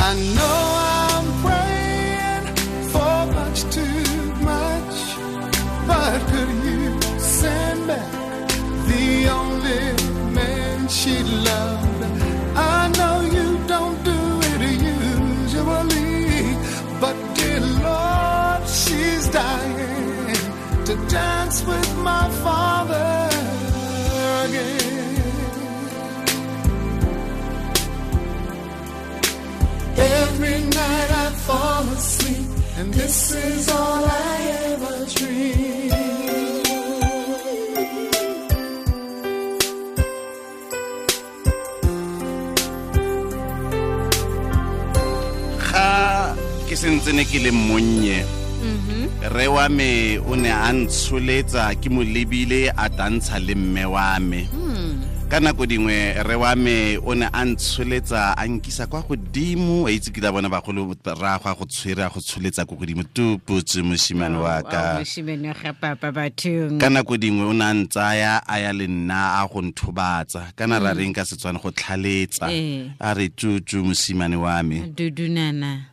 I know I'm praying for much too much, but could you send back the only man she loved? I know you don't do it usually, but dear Lord, she's dying to dance with my father again. Every night I fall asleep, and this is all I ever dream. Ga ke sentse ne ke le monnye, re wa me o ne a ntsholetsa ke mo lebile a tantsha le mme wa me. Ka nako dingwe re wa me o ne a ntsholetsa a nkisa kwa godimo, a itse ke la bona bagolo ra go go tshwere a go tsholetsa ko godimo tu putse moshimane wa ka. Moshimane ga papa bathong. Ka nako dingwe o ne a ntsaya a ya le nna a go nthobatsa, kana ra reng ka Setswana go tlhaletsa, a re tutu moshimane wa me. Dudunana.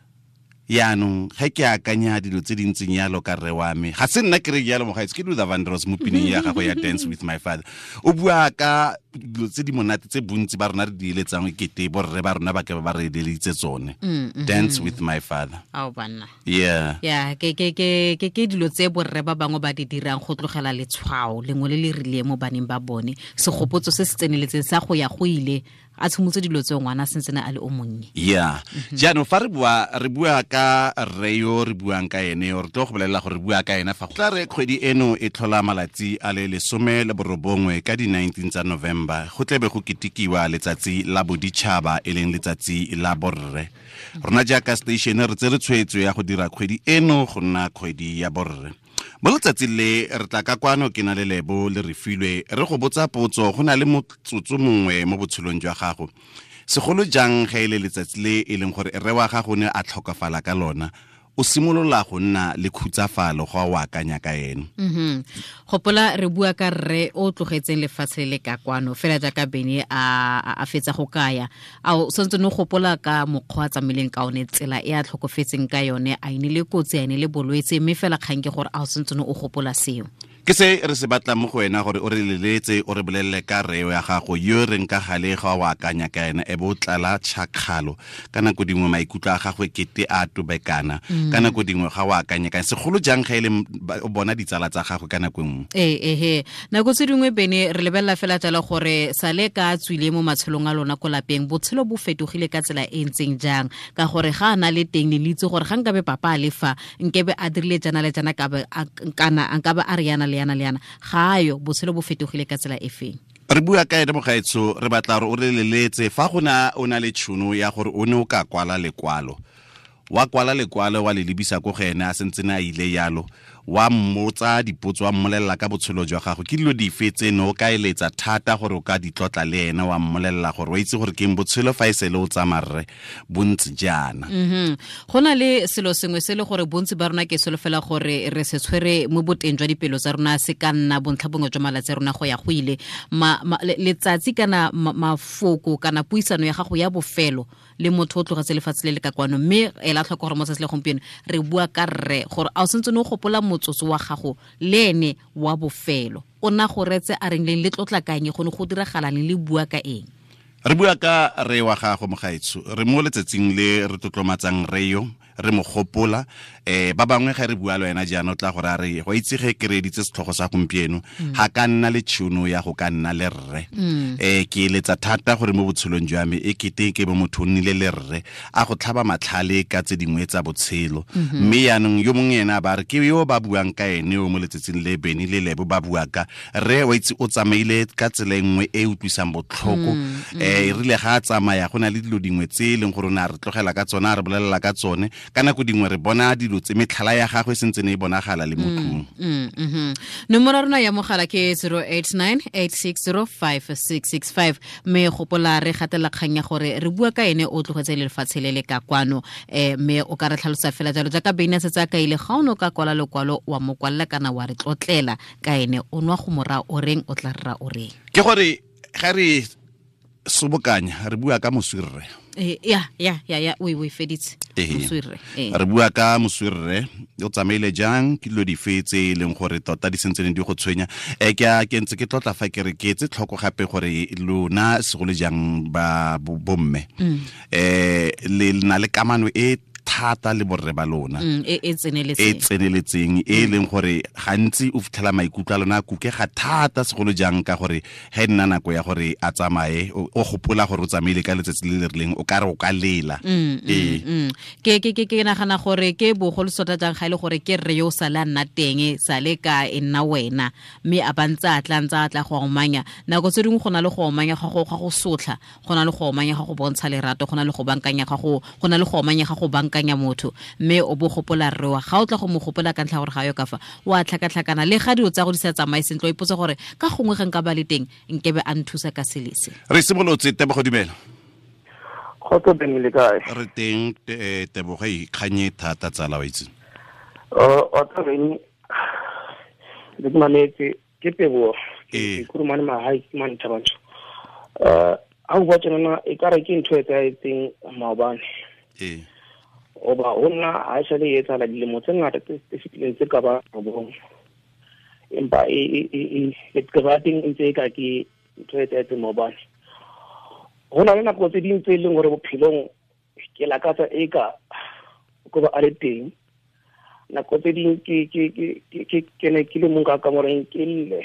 Yaanong ge ke akanya dilo tse di ntseng yalo ka rre wa me, ga se nna ke re yalo mogaetsho, ke Luther Vandross mo pineng ya gagwe ya Dance with My Father. O bua ka dilo tse di monate tse bontsi ba rona re di eletsang ekete borre ba rona ba ke ba re eleditse tsone. Dance with my father. Ao banna. Yeah. Yeah, ke ke ke ke ke dilo tse borre ba bangwe ba di dirang go tlogela letshwao lengwe le le rileng mo baneng ba bone. Segopotso se se tseneletseng sa go ya go ile a tshimotse dilo tse ngwana sentse a le o monnye. Yeah. Jaanong fa re bua ka rre yo re buang ka ene, re tlo go bolelela gore re bua ka ena fa go tla re kgwedi eno e tlhola malatsi a le 19 ka di 19 tsa November, go tlebe go ketekiwa letsatsi la boditšhaba e leng letsatsi la borre. Rona jaaka station re tsere tshwetso ya go dira kgwedi eno go nna kgwedi ya borre. Mo letsatsing le re tla ka kwano ke na le Lebo le Refilwe re go botsa potso, go na le motsotso mongwe mo botshelong jwa gago, segolo jang ge e le letsatsi le e leng gore rre wa gago ne a tlhokafala ka lona, o simolola go nna le khutsafalo go o akanya ka ene. Gopola re bua ka rre o tlogetseng lefatshe le ka kwano fela jaaka Bene a fetsa go kaya. A o santse no gopola ka mokgwa a tsamaileng ka one, tsela e a tlhokofetseng ka yone, a ine le kotsi, a ine le bolwetse, mme fela kgang ke gore a o santse no o gopola seo. Ke se re se batlang mo go wena gore o re leletse, o re bolelele ka rre ya gago yo reng ka gale ga o akanya ka ena, e bo tlala tšhakgalo. Ka nako dingwe maikutlo a gagwe kete a tobekana, ka nako dingwe ga o akanya ka segolo jang ga e le o bona ditsala tsa gagwe ka nako nngwe. Ee, nako tse dingwe Bene re lebelela fela jalo gore sale ka tswile mo matshelong a lona ko lapeng, botshelo bo fetogile ka tsela e ntseng jang, ka gore ga a na le teng le itse gore ga nkabe papa a le fa nkebe a dirile jana le jana, kana nkabe a re yana le yana le yana, ga ayo, botshelo bo fetogile ka tsela e feng. Re bua ka ene mogaetsho, re batla gore o re leletse fa go na o na le tšhono ya gore o ne o ka kwala lekwalo, wa kwala lekwalo wa le lebisa ko go ene a sentse a ile yalo, wa mmotsa dipotso, wa mmolelela ka botshelo jwa gago, ke dilo dife tse ne o ka eletsa thata gore o ka di tlotla le ene, wa mmolelela gore wa itse gore ke eng botshelo fa e sele o tsamaya rre bontsi jaana. Go na le selo sengwe se le gore bontsi ba rona ke solofela gore re se tshwere mo boteng jwa dipelo tsa rona, se ka nna bontlha bongwe jwa malatsi a rona go ya go ile. Letsatsi kana mafoko kana puisano ya gago ya bofelo le motho o tlogetse lefatshe le le ka kwano, mme ela tlhoko gore mo tsatsi le gompieno re bua ka rre, gore a o sentse o gopola motsotso wa gago le ene wa bofelo, o na go retse a reng leng, le tlotla kang, go ne go diragala leng, le bua ka eng. Re bua ka rre wa gago mogaetsho, re mo letsatsing le re tlotlomatsang rre yo, re mo gopola. Ba bangwe ga re bua le wena jaana o tla gore a re go itse ge ke reeditse setlhogo sa gompieno, ga ka nna le tšhono ya go ka nna le rre. Ke eletsa thata gore mo botshelong jwa me e kete ke bo motho o nnile le rre a go tlhaba matlhale ka tse dingwe tsa botshelo. Mme yaanong yo mongwe ena ba re ke yo ba buang ka ene yo mo letsatsing le Bene le Lebo ba bua ka rre, wa itse o tsamaile ka tsela e nngwe e utlwisang botlhoko. E rile ga a tsamaya go na le dilo dingwe tse e leng gore o ne a re tlogela ka tsone, a re bolelela ka tsone. Ka nako dingwe re bona dilo tse metlhala ya gagwe e sentse ne e bonagala le mo tlung. Nomoro ya rona ya mogala ke 089 860 5665, mme gopola re gatela kgang ya gore re bua ka ene o tlogetse lefatshe le le ka kwano. Mme o ka re tlhalosa fela jalo jaaka Bene a setse a kaile, ga o ne o ka kwala lekwalo wa mo kwalela kana wa re tlotlela ka ene, o nwa go mora o reng, o tla rra o reng. Ke gore ga re Sobokanya re bua ka moswirre. Ya o feditse moswirre. Re bua ka moswirre o tsamaile jang ke dilo dife tse e leng gore tota di sentse di go tshwenya. Ke ntse ke tlotla fa ke re ke etse tlhoko gape gore lona segolo jang ba bomme le na le kamano e thata le borre ba lona e tseneletseng e leng gore gantsi o fitlhela maikutlo a lona a kukega thata segolo jang ka gore ge nna nako ya gore a tsamaye o gopola gore o tsamaile ka letsatsi le le rileng o ka re o ka lela. Ke nagana gore ke bogolo sota jang ga ile gore ke rre yo sa le a nna teng sa le ka e nna wena mme a ba ntse a tla ntse a tla go omanya nako tse dingwe go na le go omanya ga go sotla go na le go omanya ga go bontsha lerato go na le go bankanya ga go na le go omanya ga go bankanya motho mme o bo gopola rre wa ga o tla go mo gopola ka ntlha gore ga yo ka fa wa tlhakatlhakana le ga dilo tsa go di sa tsamaye sentle o ipotsa gore ka gongwe ga nka ba le teng nkebe a nthusa ka selese. Re simolotse Tebogo, dumela. Kgotso Bene, le kae? Re teng Tebogo, ikganye thata tsala wa itse. O tla reng le ke mametse ke Tebogo ke kurumane mahae ke mane Thabantsho. Ha o bua tjena e ka re ke ntho e etsahetseng maobane. Oba ho nna ha e sale e etsahala dilemo tse ngata tse fetileng tse ka ba robong, empa e leqeba teng e ntse e ka ke ntho e etsahetseng maobane. Ho na le nako tse ding tse leng hore bophelong ke lakatsa e ka ko ba a le teng. Nako tse ding ke ne ke le mong ka kamoreng ke lle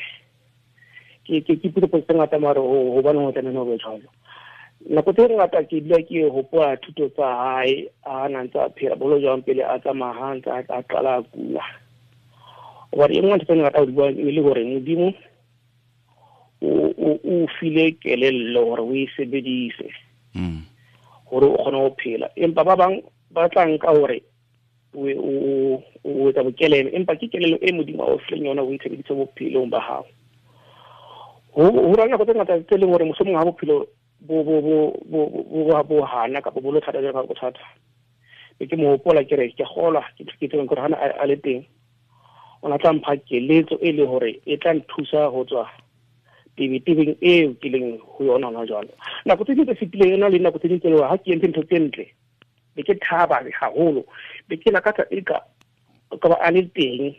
ke ipotsa tse ngata mare hobane ho tlameha ho be jwalo. Nako tse ngata ke dula ke hopola thuto tsa hae a na ntse a phela bolo jwang pele a tsamaya ha ntse a qala a kula. Hobane e nngwe ntho tse ngata ho di buang e le hore Modimo o file kelello hore o e sebedise hore o kgone ho phela, empa ba bang ba tla nka hore o etsa bokelelo, empa ke kelello e Modimo a o fileng yona o e sebedise bophelong ba hao. Ho ra nako tse ngata tse leng hore mohlomong ha bophelo bo hana kapa bo lo thata jwalo ka bothata, be ke mo hopola ke re ke kgolwa ke tsebeng hore hana a le teng o na tla mpha keletso e le hore e tla nthusa ho tswa tebetebeng eo ke leng ho yona hona jwalo. Nako tse ding tse fetileng ena le nako tse ding tse leng ha ke entse ntho tse ntle be ke thaba haholo, be ke lakatsa e ka ba a le teng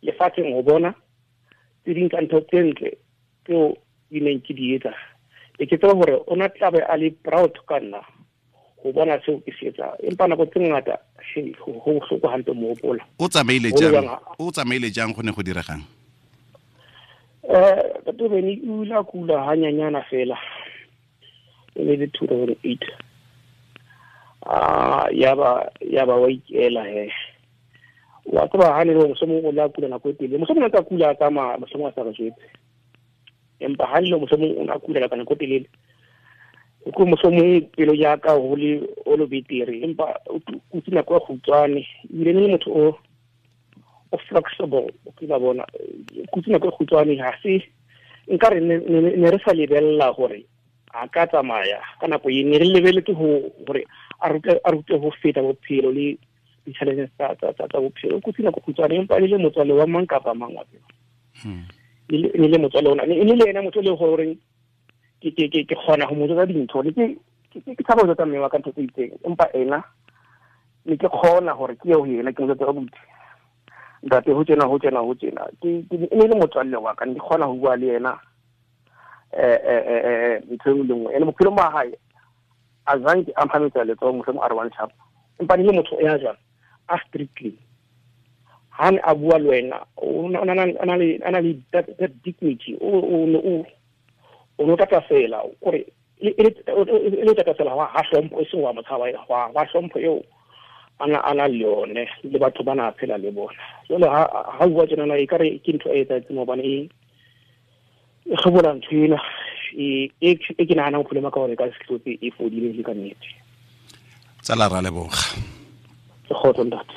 lefatsheng ho bona tse ding tsa ntho tse ntle tseo di neng ke di etsa. Be ke tseba hore o na tla be a le proud ka nna ho bona seo ke se etsang, empa nako tse ngata ho bohloko hampe mo hopola. O tsamaile jang go ne go diregang? Ntate Bene o ile a kula hanyanyana fela e le 2008. Ya ba wa ikela he. Wa tseba ha ne le mohlomong o la kula nako e telele, mohlomong a tla kula a tsamaya, mohlomong a sa re jwetse, empa ha le mohlomong o na kula ka nako e telele ko mohlomong pelo ya ka ho le o lo betere, empa o kutse nako e kgutshwane ebile ne le motho o flexible, o ke ba bona kutse nako e kgutshwane. Ha se nka re ne re sa lebella hore a ka tsamaya ka nako e ne re lebeletse hore a rute ho feta bophelo le di-challenges tsa bophelo. O kutse nako kgutshwane empa e le motswalle wa mang kapa mang wa tseba. E le motswalle ona e le yena motho le gore ke kgona ho mo jwetsa dintho le ke tshaba ho jwetsa mme wa ka ntho tse itseng, empa ena ne ke kgona hore ke ye ho yena ke mo jwetse ka buti ntate ho tjena ho tjena ho tjena. Ke e le motswalle wa ka, ne ke kgona ho bua le yena ntho e nngwe le nngwe. Ene bophelong ba hae a zanke a mphametsa letsoho mohlomong a re one sharp, empa ne le motho ya jwang a strictly ha ne a bua le wena o na le that dignity, o no tata fela kore e le tata fela ha hlompho e seng wa motshaba wa hlompho eo ana le yone le batho ba na phela le bona. Jwale ha bua tjena e kare ke ntho e etsahetseng hobane e kgobola ntho ena e ke nahanang bophelo ba ka hore ka sehlotse e fodile le ka nnete. Tsala ra leboga. Ke kgotso ntate.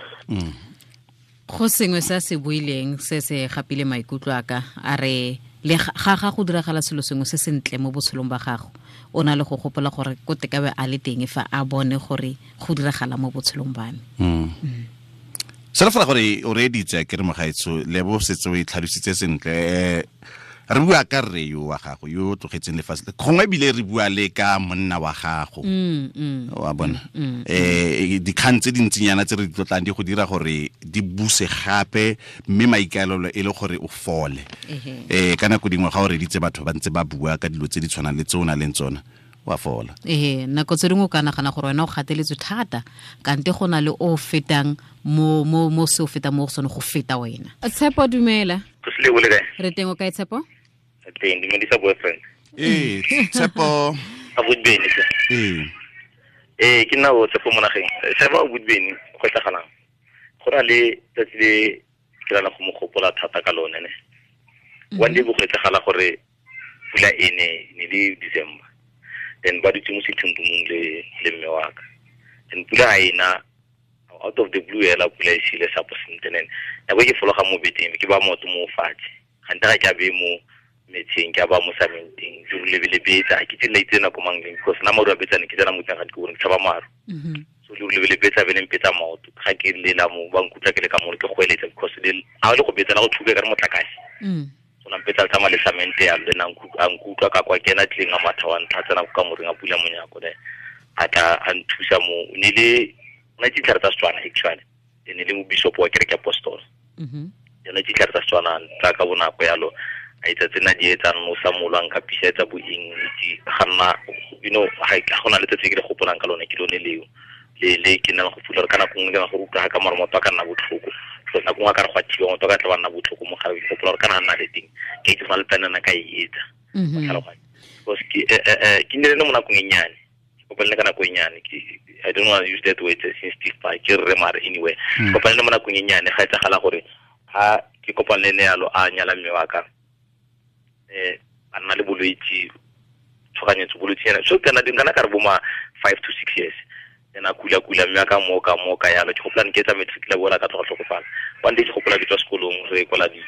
Go sengwe se se buileng se se gapile maikutlo a ka a re le ga go diragala selo sengwe se sentle mo botshelong ba gago o na le go gopola gore ko tekabe a le teng fa a bone gore go diragala mo botshelong ba me. Sela fela gore o reeditse ke re mogaetsho le bo setse o e tlhalositse sentle. Re bua ka rre yo wa gago yo tlogetseng lefatshe gongwe ebile re bua le ka monna wa gago wa bona dikgang tse dintsinyana tse re di tlotlang di go dira gore di buse gape mme maikaelelo e le gore o fole ka nako dingwe ga o reditse batho ba ntse ba bua ka dilo tse di tshwanang le tse o nang le tsona wa fola. Nako tse dingwe o ka nagana gore wena o gateletswe thata kante go na le o fetang mo mo mo se o fetang mo go sone go feta wena. Tshepo dumela. Re teng o kae Tshepo? Teng dumedisa boyfriend. Tshepo. A Budbeni. Ke nna o Tshepo mo nageng. Tshepo Budbeni go tlagalang. Go na le tsatsi le ke rana go mo gopola thata ka lone ne. One day bo go tlagala gore pula e ne le December. Then ba dutse mo sethong le mme wa ka. Then pula ena out of the blue ela pula e sile sa posintenen. Nako ke fologa mo beteng ke ba motho mo fatshe. Gante ga ke a be mo metseng ke a ba mo samenteng ke lebele betsa ke tsela itse nako mang leng because na maru a betsane ke tsena mo teng ga ke bone ke tshaba maru. So le lebele betsa be leng betsa maoto ga ke lela mo ba nkutlwa ke le ka mo ke goeletsa because le a le go betsa la go thuka ka re motlakase. So na betsa tsa male samente ya le na nkutlwa ka kwa kena tleng a matha wa ntlha tsena ka moreng a pula monyako ne a tla a nthusa mo ne le na ditlhare tsa Setswana actually ne le mo bishop wa kereke apostol. Yona ditlhare tsa Setswana tsa ka bonako yalo a itse tsena di etsang mo sa molwang ka pisa tsa bo eng itse ga nna you know ga gona le tsetse ke le gopolang ka lone ke lone leo le ke nna go fula ka nako nngwe ke go utlwa ka mara motho a ka nna botlhoko so nako nngwe ka re go a thiba motho ka tla ba nna botlhoko mo gare ke gopola gore kana nna le teng ke itse fa le tsanana ka e etsa because ke ne le mo nakong e nnyane kopane ka nako e nnyane ke I don't want to use that word sensitive pa ke re mare anyway kopane le mo nakong e nnyane ga etsagala gore ha ke kopane le ne yalo a nyala mme wa ka a nna le bolwetse tshoganyetso bolwetse yana so kana dingana ka re boma 5 to 6 years then a kula mme a ka moka yalo ke gopola ke tsa matric la bola ka tloga tlhokofala one day ke gopola ke tswa sekolong re kwala di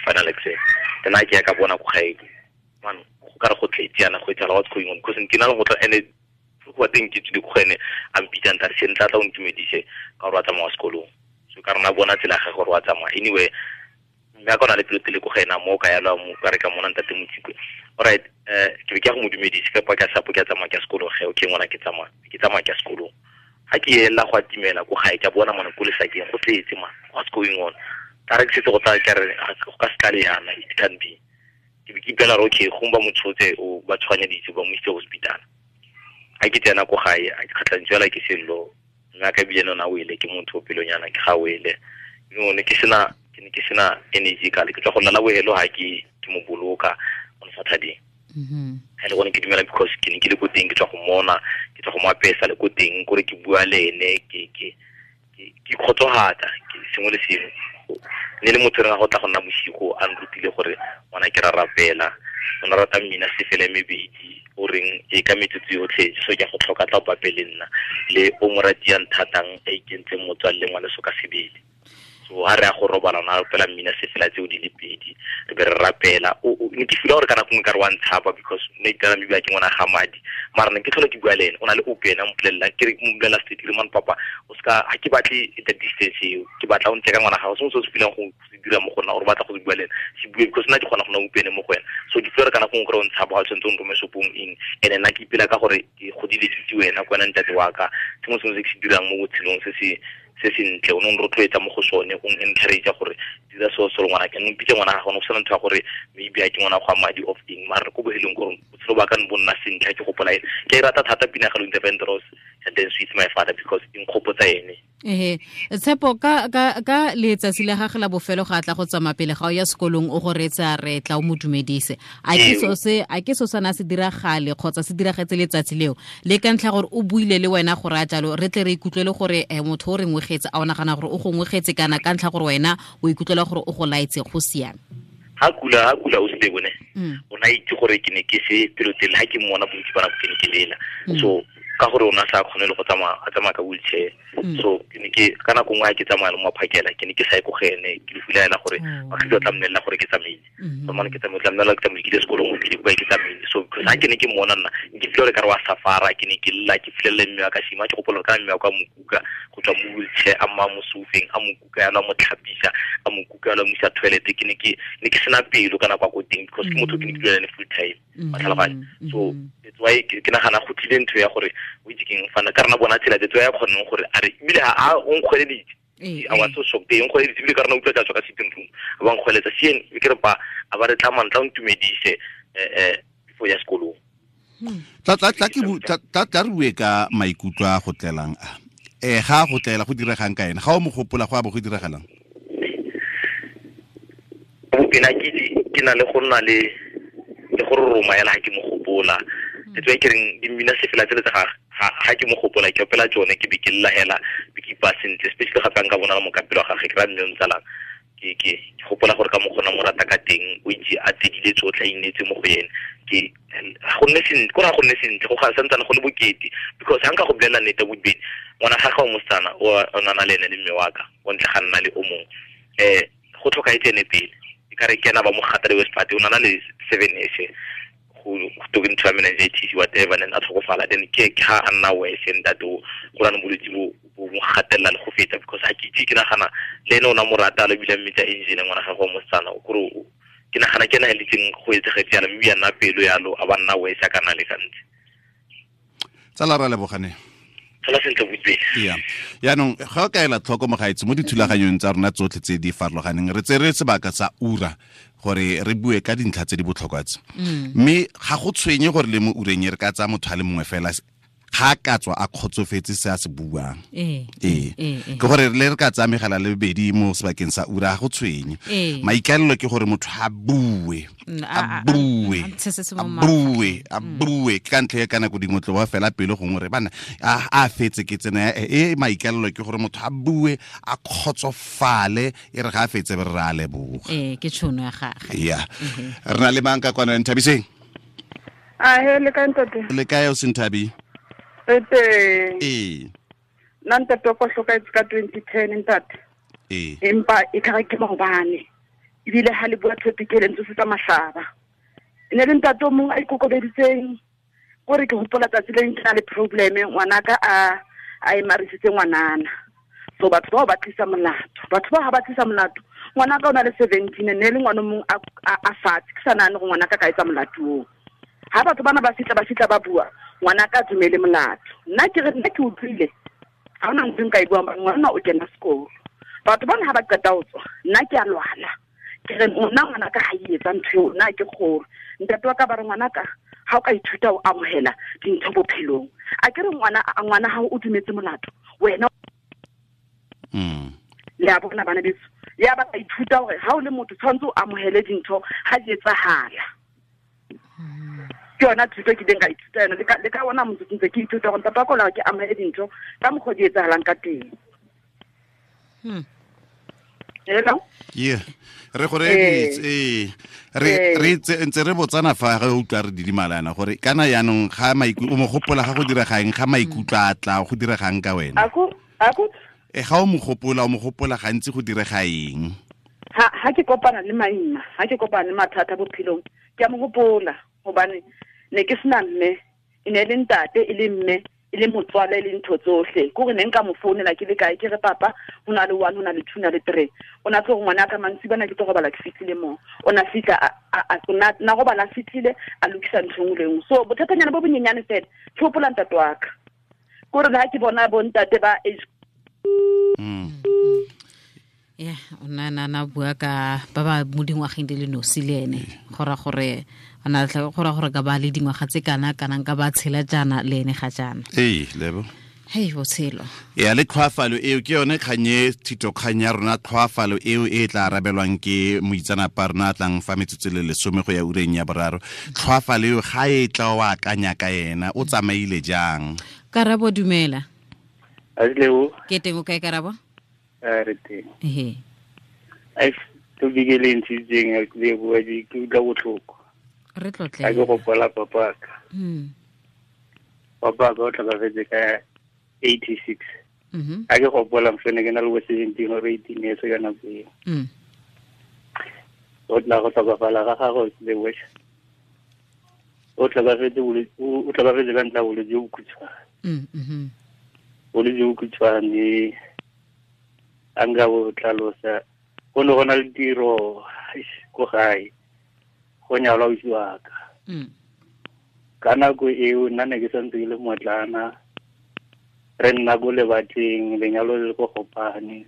final exam then a ke ya ka bona ko gae man go ka re go tletse yana go etsala what's going on because ke na le go tla ene go teng ke tsile go ene a mpitsang tare se ntla tla o ntumedise ka gore wa tsamaya sekolong so ka rena bona tsela ga gore wa tsamaya anyway mme a ka ona le pelotele ko ga ena mo ka yalo mo ka re ka mona ntate Motsikwe alright ke be ke ya go mo dumedise ka pa ka sapo ke a tsamaya ke sekolong ge okay ngwana ke tsamaya ke sekolong ga ke ela go atimela ko gae ke a bona mona ko lesakeng go tletse man what's going on ka re ke setse go tla ke re go ka se tlale yana it can be ke be ke ipela gore okay gongwe ba mo tshotse o ba tshoganyeditse ba mo isitse hospital ga ke tsena ko gae a ke kgatlhantswe fela ke sello mme a ka ebile nona o ile ke motho o pelonyana ke ga o ile you know ne ke sena energy ka le ke tswa go lala bohelo ha ke mo boloka on Saturday. Ha le gone ke dumela because ke ne ke le ko teng ke tswa go mona ke tswa go mo apesa le ko teng kore ke bua le ene ke kgotsohatsa ke sengwe le sengwe ne le motho re ga go tla go nna bosigo a nrutile gore ngwana ke ra rapela o na rata mmina sefele mebedi o reng e ka metsotso yotlhe so ke go tlhoka tla o bapele nna le o mo ratiang thatang a ikentseng motswalle ngwana so ka sebele. So ha re a go robala na rapela mmina sefela tseo di le pedi re be re rapela o ne ke feel gore ka nako nngwe ka re wa ntshapa because ne ke maybe ke ngwana ga madi mara ne ke tlhola ke bua le ene o na le open a mpolelela ke re mpolelela straight ke re man papa o ska ha ke batle the distance eo ke batla o ntle ka ngwana gago sengwe se o se feelang go se dira mo go nna gore batla go bua le ene se bue because nna ke kgona go nna open mo go wena so ke feel gore ka nako nngwe kore o ntshapa ga o tshwanetse o nrome shopong eng and nna ke ipela ka gore ke godile ke itse wena ko wena ntate wa ka sengwe sengwe se ke se dirang mo botshelong se se ntle o ne o rotloetsa mo go sone o encourage gore dira so so ngwana ke mpitse ngwana ga gone go sena ntho ya gore maybe a ke ngwana go madi of eng mara ko bohelong gore botshelo ba ka bo nna sentle ke gopola ene ke e rata thata pina ga Luther Vandross and then Sweet My Father because e nkgopotsa ene. Tshepo ka letsatsi la gagwe la bofelo ga tla go tsamaya pele ga o ya sekolong o go reetsa re tla o mo dumedise a ke so sana se diragale kgotsa se diragetse letsatsi leo le ka ntlha gore o buile le wena gore a jalo re tle re ikutlwele gore motho o re ngwegetse a o nagana gore o go ngwegetse kana ka ntlha gore wena o ikutlwela gore o go laetse go siame. Ha kula o se bone o na itse gore ke ne ke se pelotele ha ke mmona bontsi ba nako ke ne ke lela so Ka gore o na sa kgone le go tsamaya a tsamaya ka wheelchair. So ke ne ke ka nako nngwe ke tsamaya le mo phakela ke ne ke sa ye ko go ene ke le filela gore ba tla mmelela gore ke tsamaile. So mane ke tsamaile tla mmelela ke tsamaile ke ile sekolong ke ile ke tsamaile. So because ha ke ne ke mmona nna ke feel gore ka re wa safara ke ne ke lla ke filela mme wa ka shima ke gopola ka mme wa ka mokuka go tswa mo wheelchair a mma mo soufeng a mokuka ya la mo tlhapisa a mokuka ya la mo isa toilet ke ne ke sena pelo kana kwa ko teng because ke motho ke ne ke dula le full time. So that's why ke nagana go tlile ntho ya gore o itse keng fana ka rena bona tsela that's why ya kgoneng gore a re ebile ha o nkgweleditse I was so shocked e nkgweleditse ebile ka rena utlwa tla tswa ka sitting room a ba nkgweletsa sien ke re pa a ba re tla mantla o ntumedise before ya sekolong. Tla tla re bue ka maikutlo a go tlelang a ga go tlela go diregang ka ena ga o mo gopola go a bo go diragalang. Bopena ke na le go nna le gore roma ela ha ke mo gopola. That's why ke reng di mmina sefela tsele tsa ga ke mo gopola ke opela tsone ke be ke lla hela be ke ipa sentle especially gape nka bona mo kapelo ga gagwe ke ra mme o ntsalang ke gopola gore ka mo gona mo rata ka teng o itse a tsedile tsotlhe a inetse mo go ene ke go nne sentle go ra go nne sentle go ga santsane go le bokete because ha nka go bolela nnete bobedi ngwana ga gagwe mosetsana o nana le ene le mme wa ka o ntle ga nna le o mongwe go tlhokaetse ene pele e ka re ke ena ba mo gata le West Party o nana le 7 years go to ntho ya meningitis whatever then a tlhokofala then ke ha a nna worse ntate o go rana bolwetse bo mo gatelela le go feta because ha ke itse ke nagana le ene o na mo rata le bile mmetsa engine ngwana gagwe wa mosetsana kore ke nagana ke ena a letseng go etsegetse yalo mme ya nna pelo yalo a ba nna worse a kana le gantsi. Tsala ra lebogane. Tsala sentle botse. Yeah. Yaanong ga o ka ela tlhoko mogaetsi mo dithulaganyong tsa rona tsotlhe tse di farologaneng re tsere sebaka sa ura gore re bue ka dintlha tse di botlhokwa tse. Mme ga go tshwenye gore le mo ureng e re ka tsaya motho a le mongwe fela ga ka tswa a kgotsofetse se a se buang. Ke gore le re ka tsaya megala le bobedi mo sebakeng sa ura ga go tshwenye. Maikaelelo ke gore motho a bue a bue a bue ke ka ntlha ya ka nako dingwe tlo ba fela pelo gongwe re bana a fetse ke tsena e maikaelelo ke gore motho a bue a kgotsofale e re ga a fetse be re a leboga. Ke tšhono ya gagwe. Yeah. Re na le mang ka kwana Nthabiseng? A he le kae ntate? Le kae o Senthabi? Re teng. Nna ntate wa ka hlokaetse ka 2010 ntate. Empa e ka re ke maobane. Ebile ha le bua topic e le ntse tsa mahlaba. E ne le ntate o mongwe a ikokobeditseng gore ke hopola tsatsi le ke na le problem ngwanaka a emarisitse ngwanana. So batho bao ba tlisa molato. Batho ba ha ba tlisa molato. Ngwanaka o na le 17 ne le ngwana mong a fatshe ke sa nahane gore ngwanaka ka etsa molato oo. Ha batho bana ba fitla ba bua ngwanaka a dumele molato. Nna ke re nna ke utlwile ha hona ntho nka e buang ngwana o kena sekolo. Batho bana ha ba qeta ho tswa nna ke a lwala. Ke re nna ngwanaka ha e etsa ntho eo nna ke kgolo. Ntate wa ka ba re ngwanaka ha o ka ithuta o amohela dintho bophelong. A ke re ngwana ha o dumetse molato wena le a bona bana beso ya ba ka ithuta hore ha o le motho tshwanetse o amohele dintho ha di etsahala. Ke yona thuto ke ileng ka ithuta yona le ka ona motho ntse ke ithuta gore ntate wa ka o la ke amohele dintho ka mokgwa di etsahalang ka teng. Hello? Yeah. Re gore re ntse re botsana fa ga utlwa re didimalana gore kana yaanong ga maikutlo o mo gopola ga go diregang ga maikutlo a tla go diregang ka wena. Ako ga o mo gopola gantsi go direga eng? Ha ke kopana le maima, ha ke kopana le mathata bophelong, ke a mo gopola hobane ne ke sena mme, e ne le ntate e le mme e le motswala e le ntho tsohle. Ke gore ne nka mo founela ke le kae ke re papa ho na le 1 ho na le 2 na le 3. O na tlo gore ngwana ka mantsibana ke tlo robala ke fihlile mo. O na fihla na robala a fihlile a lokisa ntho engwe le engwe. So bothatanyana bo bonyenyane fela ke hopola ntate wa ka. Ke gore ha ke bona bo ntate ba age Yeah, o na bua ka ba ba mo dingwageng di le nosi le ene go ra gore ana go ra gore ka ba le dingwaga tse kana kanang ka ba tshela jaana le ene ga jaana. Lebo. Hei botshelo. Ya le tlhwafalo eo ke yone kganye thito kgang ya rona tlhwafalo eo e tla arabelwang ke moitsanapa rona a tlang fa metsotso le 10 go ya ureng ya boraro. Tlhwafalo eo ga e tla o akanya ka ena o tsamaile jang? Karabo dumela. Asleo. Ke teng o kae Karabo? Re teng. Ehe. Ai to bigele ntshitseng ke bua di ke utlwa botlhoko. Re tlotle. Ka go gopola papa ka. Papa ka o tlhokafetse ka 86. A ke gopola mfene ke na le bo 17 or 18 years ka nako eo. O tla go tlhokafala ga gagwe le wes. O tlhokafetse ka ntlha bolwetse jo bokhutshwane. Bolwetse jo bokhutshwane a nka bo tlhalosa go ne go na le tiro ko gae go nyalwa ausi wa ka. Ka nako eo nna ne ke santse ke le motlana re nna ko lebatleng lenyalo le ko Gopane.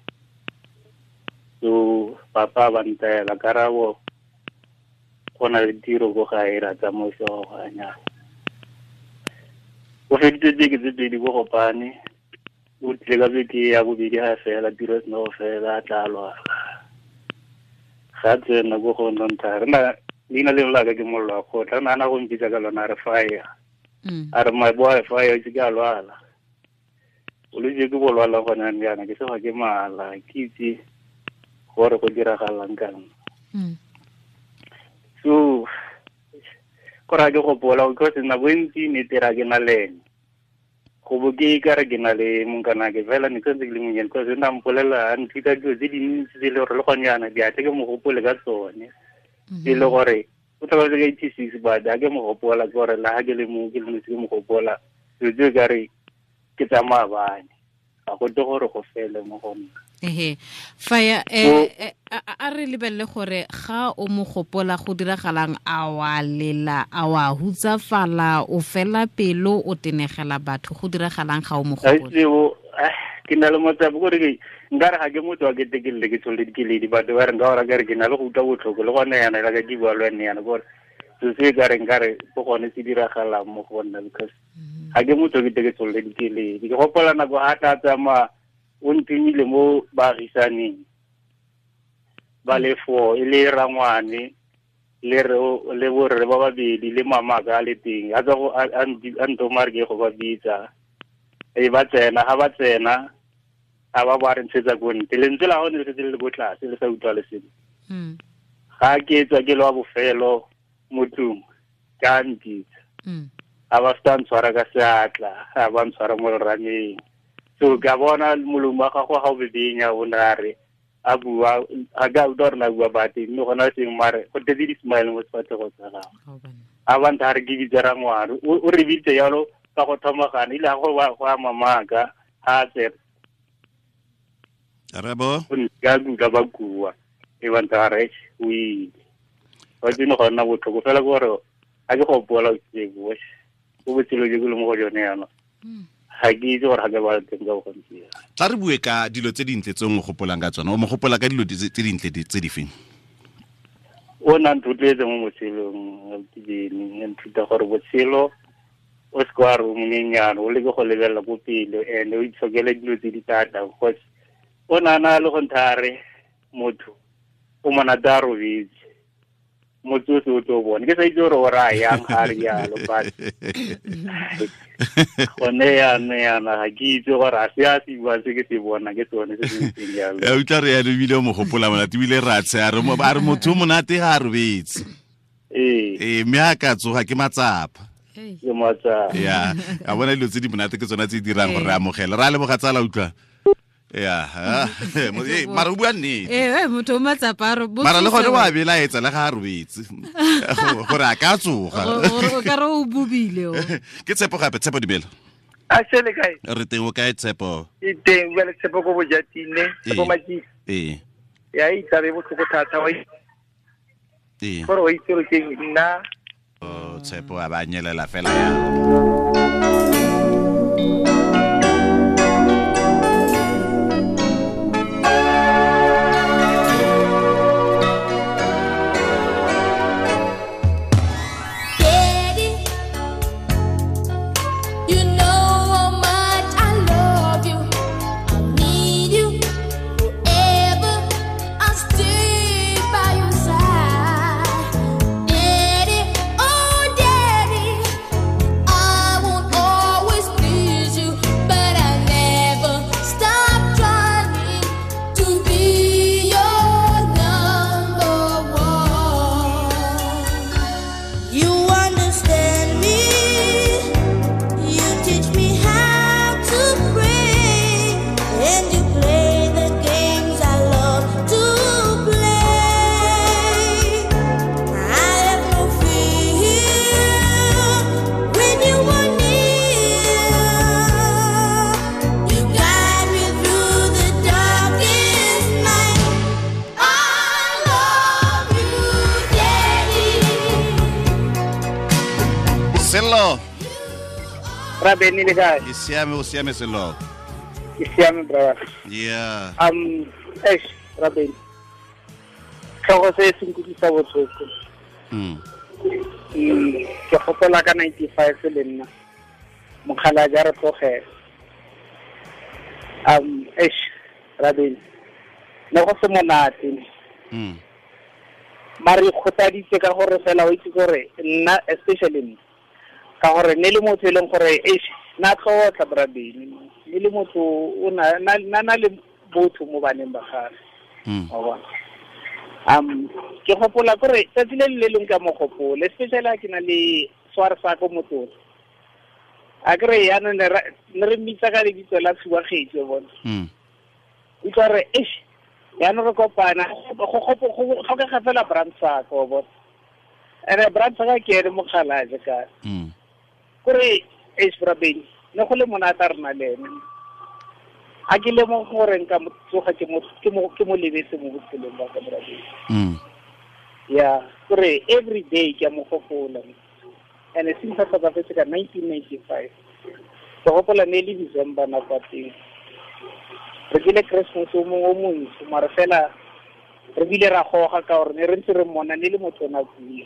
So papa ba ntaela karabo go na le tiro ko gae ra tsamaisa go a nyala. O feditse beke tse pedi ko Gopane, o tlile ka beke ya bobedi ga fela tiro e sena go fela a tla lwala. Ga tsena ko go nna re na leina leo la ka ke mollo wa kgotla, re nagana go mpitsa ka lona a re fire. A re my boy fire itse ke a lwala. Bolwetse ke bo lwala gone jaana ke sewa ke mala ke itse gore go diragalang ka nna. So kore ga ke gopola because nako e ntsi ne tera ke na le ene. Go bo ke ka re ke na le monkanake fela ne ke santse ke le monnyane because o ne a mpolelela a nthuta dilo tse dintsi tse e le gore le gone jaana di a tle ke mo gopole ka tsone. E le gore o tlhokafetse ka 86 but ha ke mo gopola ke gore le ha ke le mo ke le ke mo gopola dilo tse ka re ke tsa maabane ga go tle gore go fele mo go nna. Ehe faya a re lebelele gore ga o mo gopola go diragalang a wa lela a wa hutsafala o fela pelo o tenegela batho go diragalang ga o mo gopola. Ke na le matsapa gore ke nkare ga ke motho wa ketekelle ke tsholole dikeledi batho ba re nka ora kare ke na le go utlwa botlhoko le gone yana la ka ke bua le wena yana gore se se ka re nkare go gone se diragalang mo go nna because ga ke motho ke ke tsholole dikeledi. Ke gopola nako a tla tsamaya o ntumile mo baagisaneng ba le four e le rangwane le le borre ba babedi le mamaka a le teng a tswa go a ntoma re ke go ba bitsa e ba tsena ga ba tsena a ba ba re ntshetsa ko ntle lentswe la gone le setse le le ko tlase le sa utlwa le sengwe. Ga ke tswa ke le wa bofelo mo tlung ka mpitsa a ba feta ntshwara ka seatla a ba ntshwara mo lerameng. So ka bona molomo wa gagwe ga o bebenya o ne a re a bua a ka utlwa gore na bua bate mme gona seng mare go tletse di-smile mo sefatlhego sa gagwe. A ba ntha re ke bitse rangwane o re bitse jalo ka go thomagana ile ga go a mamaka ga a tsena. Arabo ka utlwa ba kua e ba ntha re o ile wa tsene go nna botlhoko fela ke gore ga ke gopola o botshelo jo ke le mo go jone yana ga ke itse gore ga ke ba teng ka bogontsi. Tla re bue ka dilo tse dintle tse o mo gopolang ka tsona. O mo gopola ka dilo tse dintle tse di feng? O na nthotloetse mo botshelong ke nthuta gore botshelo o se ka wa re o monyenyane o leke go lebelela ko pele and o itshokele dilo tse di thata because o nana le go ntha re motho o monate a robetse motho o se o tlo bone ke sa itse gore o raya yang ga re jalo but gone yana ga ke itse gore a se a se buang se ke se bona ke sone se se ntseng jalo. Ya utlwa re ya ebile o mo gopola monate ebile ra tshe a re motho o monate ga a robetse. Ee mme a ka tsoga ke matsapa. Ke matsapa. Ya a bona dilo tse di monate ke tsona tse di dirang gore re amogele. Ra leboga tsala utlwa. Ya mara o bua nnete. Motho o matsapa a re mara le gone wa belaetsa le ga a robetse gore a ka tsoga o ka re o bobile o. Ke Tshepo gape. Tshepo dumela. A sele kae? Re teng o kae Tshepo? E teng bua le Tshepo ko Bojatine, Tshepo Matjisi. Ee. Ya itsabe botlhoko thata wa. Ee. Gore o itse gore ke nna. O Tshepo a ba nyelela fela ya. Daddy, oh daddy, Ra Beni le kae? Ke siame, o siame selo. Ke siame brother. Yeah. Eish, Ra Beni. Tlhogo se se nkutlwisa botlhoko. Ke gopola ka 95 le nna. Mokgalajwe a re tlogela. Eish, Ra Beni. Ne go se monate. Mare kgotaditse ka gore fela o itse gore nna especially nna ka gore ne le motho e leng gore eish na tlotla Bra Beni ne le motho o na na le botho mo baneng ba gagwe. Wa bona. Ke gopola gore tsatsi le le leng ka mo gopola especially ha ke na le sware sa ko motsotso. A kry yaanong ne re mmitsa ka lebitso la Tshubagetsi wa bona. Utlwa re eish yaanong re kopana go tlhokega fela Brandsaka wa bona. Ene Brandsaka ke ene mokgalajwe ka. Kore eish Bra Beni ne go le monate a rena le ene. A ke lemoge gore nka mo tsoga ke mo lebetse mo botshelong ba ka Bra Beni. Yeah, kore every day ke a mo gopola. And since a tlhokafetse ka 1995 ke gopola ne le December nako ya teng. Re kile Christmas o mongwe o montsho mare fela re bile ra goga ka gore ne re ntse re mmona ne le motho o na kula.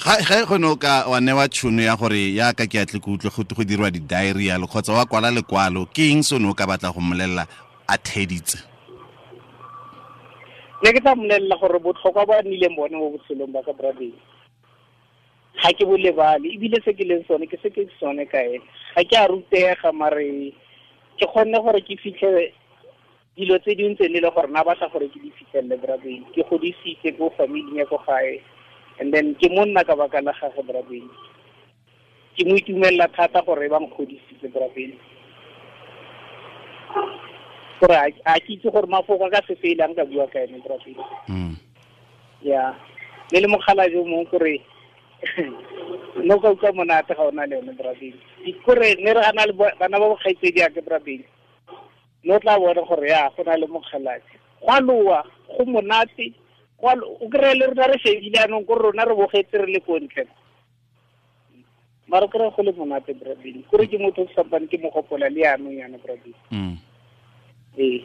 Ga go ne ka wa newa tšhono ya gore yaka ke atle ke utlwe go dirwa di-diary yalo kgotsa wa kwala lekwalo, ke eng se o ne o ka batla go mmolelela a theditse? Ne ke tla mmolelela gore botlhokwa ba nnileng bone mo botshelong ba ka Bra Beni ga ke bo lebale, ebile se ke leng sone ke se ke sone ka ene. Ga ke a rutega mare ke kgonne gore ke fitlhe dilo tse dingwe tse ne le gore na batla gore ke di fitlhelele Bra Beni. Ke godisitse ko familing ya ko gae and then ke monna ka baka la gagwe Bra Beni. Ke mo itumelela thata gore ba nkgodisitse Bra Beni. Gore a ke itse gore mafoko a ka se fele a nka bua ka ene Bra Beni. Yeah. Le le mokgalajwe o mongwe kore no ka utlwa monate ga o na le yone Bra Beni. Kore ne re ana le bana ba bokgaitsedi ake Bra Beni. No tla bona gore ya go na le mokgalajwe. Go a loa, go monate, o kry-e le rona re shebile anong kore rona re bogetse re le ko ntle. Mara o kry-e go le monate Bra Beni. Kore ke motho o sampane ke mo gopola le yanong yana Bra Beni. Ee.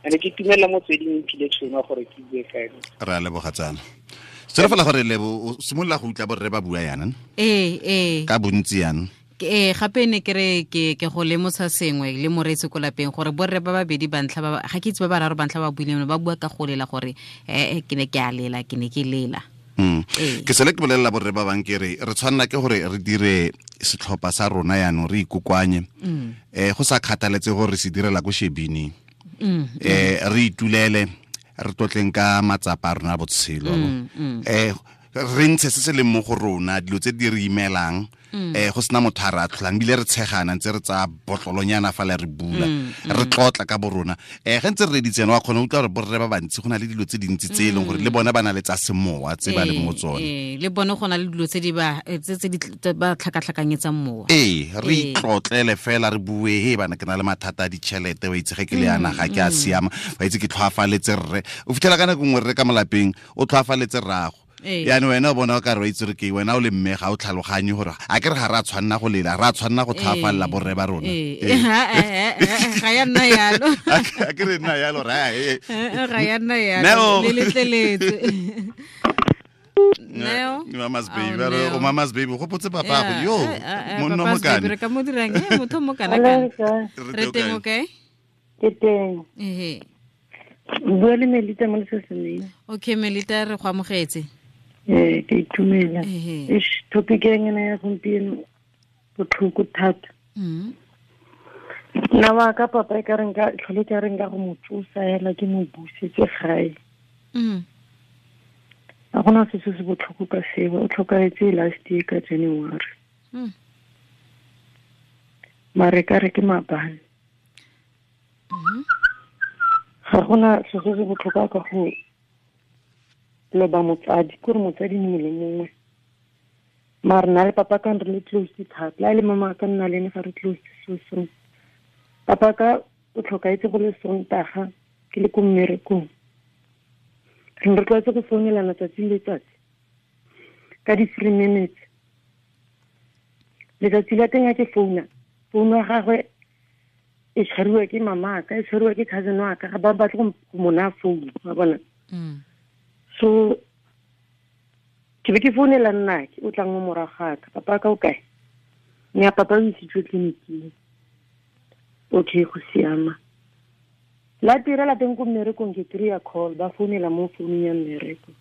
Ene ke itumela motsweding e mphile tšhono gore ke bue ka ene. Re a leboga tsala. Selo fela gore Lebo o simolola go utlwa borre ba bua yana? Ee. Ka bontsi yana. Gape ne ke re ke go lemosa sengwe le moreetsi ko lapeng gore borre ba babedi ba ntlha ba ga ke itse ba bararo ba ntlha ba buileng ba bua ka go lela gore ke ne ke a lela, ke ne ke lela. Ke sele ke bolelela borre ba bang ke re re tshwanela ke gore re dire setlhopha sa rona yaanong re ikokoanye. Go sa kgathaletse gore re se direla ko shebining. Re itulele re tlotleng ka matsapa a rona a botshelo. Re ntshe se se leng mo go rona, dilo tse di re imelang, go sena motho a re atlholang, ebile re tshegana ntse re tsaya botlolonyana fa le re bula, re tlotla ka bo rona. Ge ntse re reditse yana, wa kgona go utlwa gore borre ba bantsi go na le dilo tse dintsi tse e leng gore le bona ba na le tsa semowa tse ba leng mo tsone. Le bone go na le dilo tse di ba tse di ba tlhakatlhakanyetsang mowa. Re itlotlele fela re bue, he bana ke na le mathata a ditšhelete, wa itse ge ke le yana ga ke a siama, wa itse ke tlhoafaletse rre. O fitlhela ka nako nngwe rre ka molapeng o tlhoafaletse rrago. Yaanong wena o bona o ka re wa itse re ke wena o le mme ga o tlhaloganye gore a ke re ga re a tshwanna go lela, re a tshwanna go tlhoafalela borre ba rona. Ga ya nna yalo. A ke re nna yalo, ra, Ga ya nna yalo. Le letleletse. Neo. Mama's baby, ba re, o mama's baby, go potse papa go, yo, monna Papa's mokane. baby, re ka mo dirang, motho mo kana kana. Re teng o kae? Ke teng. Bua le Melita mo lesesemeng. Okay, Melita, re go amogetse. Ke itumela. Eish, topic e ngena ya gompieno botlhoko thata. Nna wa ka papa e ka reng ka tlhole ka reng ka go mo tsosa hela ke mo busetse gae. Ga gona se se botlhoko ka seo, o tlhokahetse last year ka January. Mare ka re ke maabane. Ga gona se se botlhokwa ka go loba motsadi, ke gore motsadi mongwe le mongwe. Mare nna le papa ka re le close thata, la le mama ka nna le ene ga re close so so. Papa ka o tlhokaetse go le Sontaga ke le ko mmerekong. Re ne re tlwaetse go founelana tsatsi le letsatsi ka di-3 minutes. Letsatsi la teng a ke founa, founu ya gagwe e tshwariwa ke mamaka, e tshwariwa ke cousin wa ka, ga ba batle go mo naya founu, wa bona. So ke be ke founela nnake o tlang mo morago ga ka, papa ka o kae? Mme a papa o isitswe tleliniking. Okay, go siama. La tirela teng ko mmerekong, ke kry-a call, ba founela mo founung ya mmereko.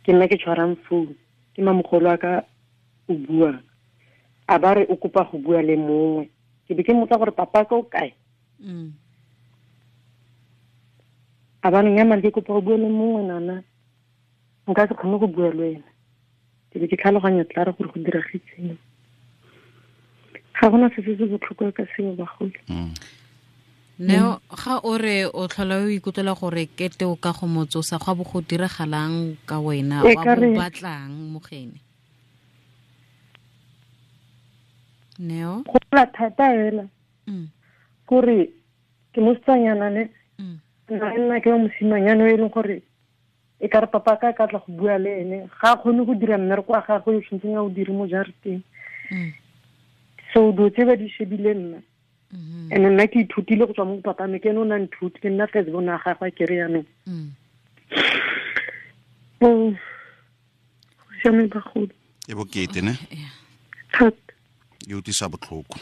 Ke nna ke tshwarang founu, ke mamogolo a ka o buang. A ba re o kopa go bua le mongwe. Ke be ke mmotsa gore papa ka o kae? A ba re nnyaa, ke kopa go bua le mongwe nana. Nka se kgone go bua le wena. Ke be ke tlhaloganya tla re gore go diragetseng. Ga gona se se botlhokwa ka seo bagolo. Neo, ga o re o tlhola o ikutlwela gore kete o ka go motsosa, go a bo go diragalang ka wena, wa bo batlang mogene? Neo? Go la thata hela. Kore ke mosetsanyana ne. Nna ke wa mosimanyana o e leng gore e ka re papa ka ka tla go bua le ene, ga a kgone go dira mmereko wa gagwe o tshwanetseng a o dire mo jarateng. So dilo tse ba di shebile nna. And nna ke ithutile go tswa mo papa me, ke ene o na nthuti, ke nna first born wa gagwe ke re yanong. Go siame bagolo. E bokete ne? Thata. E utlwisa botlhoko.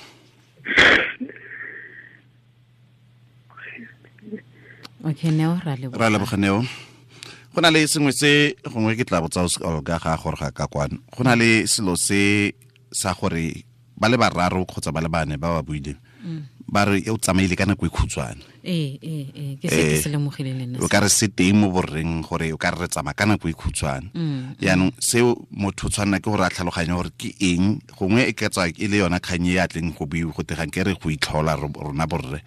Okay, Neo, ra leboga. Ra leboga, Neo. Go na le sengwe se gongwe ke tla botsa Olga ga gore ga ka kwano. Go na le selo se sa gore ba le bararo kgotsa ba le bane ba ba buileng. Ba re o tsamaile ka nako e khutshwane. Ke se ke se lemogile le nna. O ka re se teng mo borreng gore o ka re tsamaya ka nako e khutshwane. Jaanong seo motho tshwanela ke gore a tlhaloganye gore ke eng, gongwe e ka tswa e le yona kgang e ya tleng go buiwa go tegang ke re go itlhola rona borre.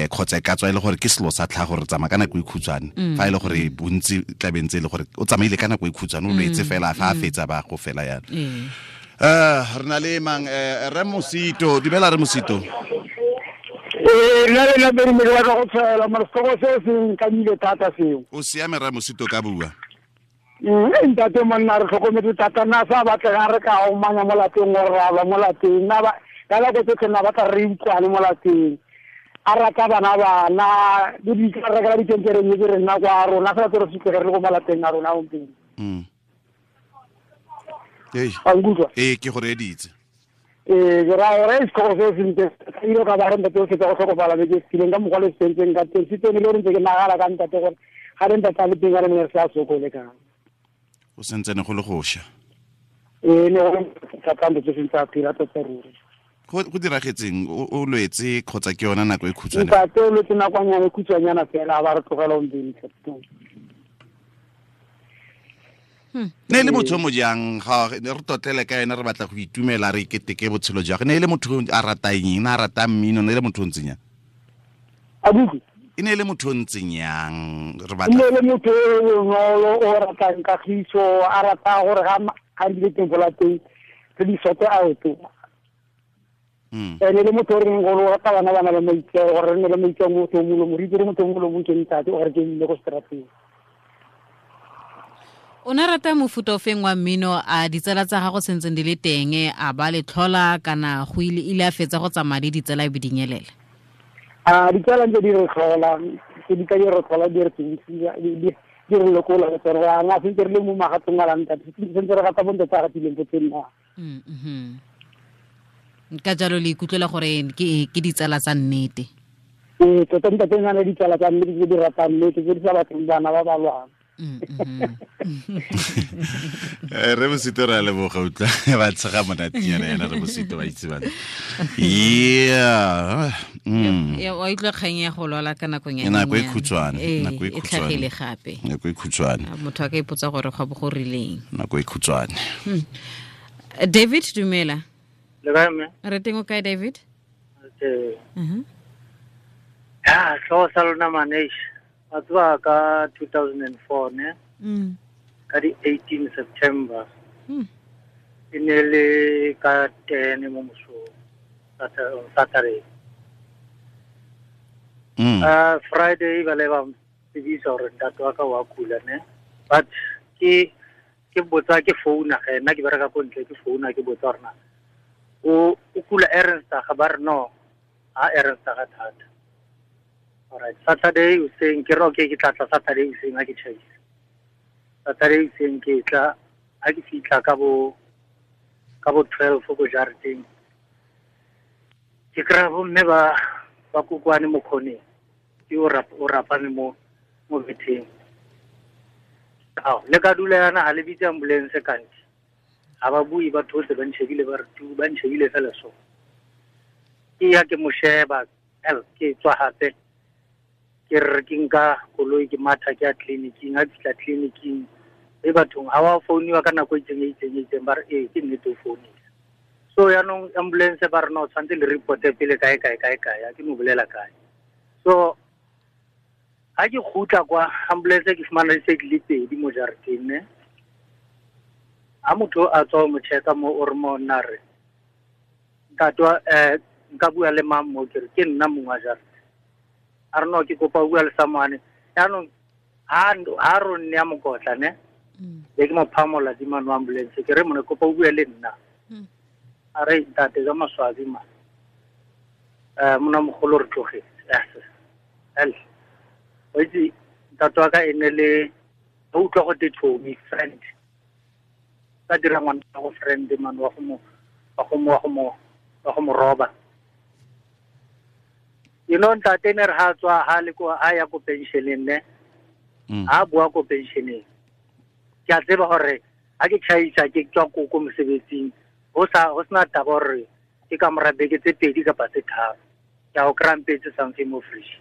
Kgotsa e ka tswa e le gore ke selo sa tlhago gore tsamaya ka nako e khutshwane. Fa e le gore bontsi tla be ntse e le gore o tsamaile ka nako e khutshwane, o lwetse fela fa a fetsa ba go fela yana. Re na le mang, Re Mosito, dumela Re Mosito. Nna le nna pedi me ke batla go tshwaela, mara setlhogo se se nkamile thata seo. O siame Re Mosito, ka bua. Ntate monna re tlhokometse thata, nna sa batlega re ka omanya mo lapeng gore ra lwa mo lapeng. Nna ba ka nako tsotlhe nna batla re utlwane mo lapeng. A rata bana bana, le di ka rekela dikenkereng tse re nna kwa rona, fela tse re fitlhe re le ko malapeng a rona gompieno. Ee, ke go reeditse. Ke raya gore setlhogo se sentle, ka ile ka ba re ntate o fetsa go tlhokofala beke e fetileng ka mokgwa le se sentseng ka teng. Se tsene le gore ntse ke nagana ka ntate gore ga re ntate a le teng ka re ne re sa sokole ka. O sentsene go le go sha. Ne go thata ntate se sentse a phela tota ruri. Go diragetseng, o lwetse kgotsa ke yona nako e khutshwane? Ntate o lwetse nakonyana e khutshwanyana fela, ba re tlogela gompieno. Ne le motho mo jang, ga re totlele ka ena, re batla go itumela, re iketeke botshelo jwa gagwe. Ne e le motho a ratang eng, a ratang mmino, ne e le motho o ntseng yang? Abuti? E ne e le motho o ntseng yang? Re batla E ne e le motho o bonolo, o ratang kagiso, a rata gore ga a dile teng ko lapeng, re di sote out. E ne le motho o reng gore o rata bana bana le maitseo, gore re nne le maitseo motho o molomo, re itse gore motho o molomo ke ntate, gore ke mme ko seterateng. O ne rata mofuta o feng wa mmino, a ditsala tsa gago sentseng di le teng, a ba le tlhola kana go ile a fetsa go tsamaya le ditsala e be di nyelela? A ditsala ntse di re tlhola, tse di ka di re tlhola, di re tsebisa, di re lokola, le tsone. Re a nga sentse re le mo magatong a la ntate, sentse re gata bontate a gatileng ko teng na. Ka jalo le ikutlwela gore ke ditsala tsa nnete? Ee, tota ntate o na le ditsala tsa nnete tse di ratang nnete, tse di sa batleng bana ba ba lwang. Re Mosito re a leboga, utlwa ba tshega monatinyana ena Re Mosito, ba itse bana. Yeah. Ya, wa utlwa kgang ya go lwala ka nakong ya Nako e nyenyane. khutshwane, Ee, nako e e khutshwane. tlhagile gape. Nako e khutshwane. A motho a ka ipotsa gore go bo go rileng. Nako e khutshwane. David, dumela. Le kae, mme? Re teng o kae, David? Ee. Ya, tlhogo sa lona manesh. Wa tseba ka 2004, ne? Ka di 18 September. E ne le ka 10 mo mosong, on Saturday. Friday ba le ba tsebisa gore ntate wa ka wa kula, ne? But ke botsa ke founa ge, nna ke bereka ko ntle, ke founa ke botsa gore na O kula Ernstage ba re no ha Ernstage thata. Alright, Saturday hoseng ke re okay ke tla tla Saturday hoseng ha ke tjhaisa. Saturday hoseng ke tla ha ke fihla ka bo 12 ko jareteng. Ke kry-a bomme ba kokwane mo khoneng. Ke o rapame mo betheng. Ao, le ka dula yana ha le bitse ambulance kante. Ha ba bue ba thotse ba ntshebile ba re tu ba ntshebile fela so. Ke ya ke mo sheba, ke tswa hape. Ke re ke nka koloi ke matha ke ya tleliniking, ha ke fihla tleliniking e bathong ha wa founiwa ka nako e itseng ba re ee ke nnete o founile. So yaanong ambulance ba re no tshwanetse le reporte pele kae kae kae kae, ha ke no bolela kae. So ha ke kgutla kwa ambulance ke fumana di se di le pedi mo jareteng ne. Ha motho a tswa mo checka mo o re mo nna re ntate nka bua le mang mo ke re ke nna mongwe wa jarete. A re no ke kopa o bua le samane. Yaanong ha ro nne ya mokotla ne. Be ke mo phamola di mano ambulance ke re mone kopa o bua le nna. A re ntate ka maswabi ma. Mona mogolo re tlogetse. El. O itse ntate wa ka e ne le o utlwa go te chomi friend. Ka dira ngwana go friend man wa go mo roba. You know ntate ne re ha tswa ha le ko ha ya ko pensioneng ne. Ha bua ko pensioneng. Ke a tseba hore ha ke tjhaisa ke tswa ko mosebetsing ho sena taba hore ke ka mora beke tse pedi kapa tse tharo. Ke a o krampetse something mo fresh.